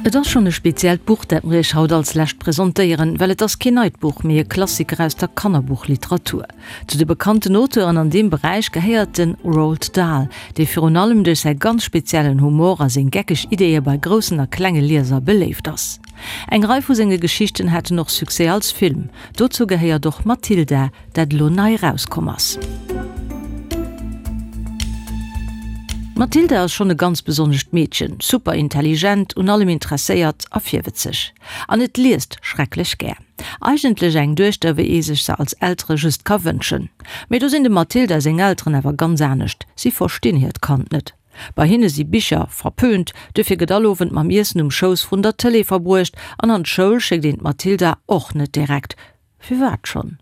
Et ass schonn e speziellt Buch, dat mer Iech haut als lescht presentéieren, well et ass keen neit Buch, mee e Klassiker aus der Kannerbuchliteratur. Zu de bekannten Auteuren an deem Beräich gehéiert de Roald Dahl, dee virun allem duerch säi ganz speziellen Humor a seng geckeg Ideeë bei groussen a klenge Lieser beléift ass. Eng Rei vu senge Geschichten haten och Succès als Film. Dozou gehéiert och Matilda, dat elo nei erauskomm ass. D'Matilda ass schonn e ganz besonnescht Meedchen, super intelligent, un allem interesséiert a virwëtzeg. An et liest schrecklech gär. Eigentlech eng Duechter, wéi ee sech se als Eltere just ka wënschen. Mee do sinn dem Matilda seng Elteren awer ganz anescht, si verstinn hiert Kand net. Bei hinne si Bicher verpönt, duerfir gëtt all Owend mam Iessen um Schouss vrun der Tëlee verbruecht an an d'Schoul schéckt een d'Matilda och net direkt. Firwat schonn?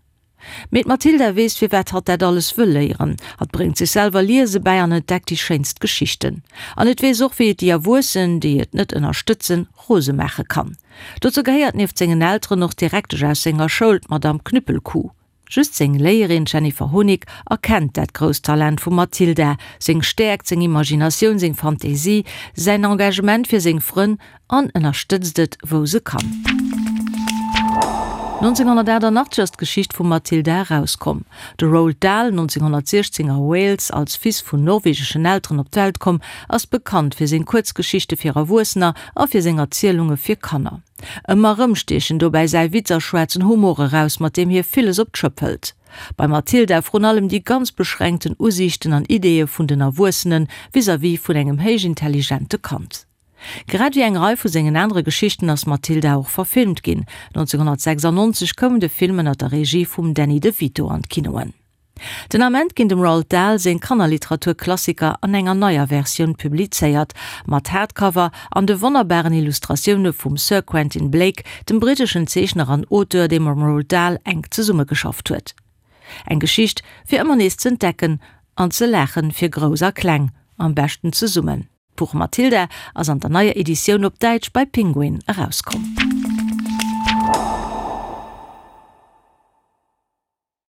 Mee d'Matilda weess firwat hatt dat alles wëll léieren. Hatt bréngt sech selwer Liese bäi an entdeckt déi schéinst Geschichten. An et weess och wéi et déi Erwuessen, déi et net ënnerstëtzen, rose maache kann. Dozou gehéiert nieft sengen Elteren och d'Direktesch aus senger Schoul, d'Madame Knüppelkuh. Just seng Léierin Jennifer Honig erkennt dat grousst Talent vum Matilda, seng Stäerkt, seng Imaginatioun, seng Fantasie, säin Engagement fir seng Frënn an ënnerstëtzt et wou se kann. 1988 ass d'Geschicht vum Matilda erauskomm. De Roald Dahl, 1916 a Wales als Fils vun norwegeschen Elteren op d'Welt komm, ass bekannt fir seng Kuerzgeschichte fir Erwuessener a fir seng Erzielunge fir Kanner. Ëmmer erëm stiechen dobäi säi Witz a schwaarzen Humor eraus, mat deem hie villes op d'Schëpp hëlt. Bei Matilda vrun allem déi ganz beschränkten Usiichten an Ideeë vun den Erwuessene vis-à-vis vun engem héichintelligente Kand. Grad ewéi eng Rei vu sengen anere Geschichten ass Matilda och verfilmt ginn. 1996 koum de Film ënner der Regie vum Danny DeVito an d'Kinoen. Den Ament ginn dem Roald Dahl seng Kannerliteratur-Klassiker an enger neier Versioun publizéiert, mat Hardcover an de wonnerbaren Illustratioune vum Sir Quentin Blake, dem britteschen Zeechner an Auteur, dee mam Roald Dahl enk zesummegeschafft huet. Eng Geschicht fir ëmmer nees z'entdecken an ze laachen, fir Grouss a Kleng, am beschten zesummen. D'Buch Matilda ass an der neier Editioun op Däitsch bei Penguin erauskomm.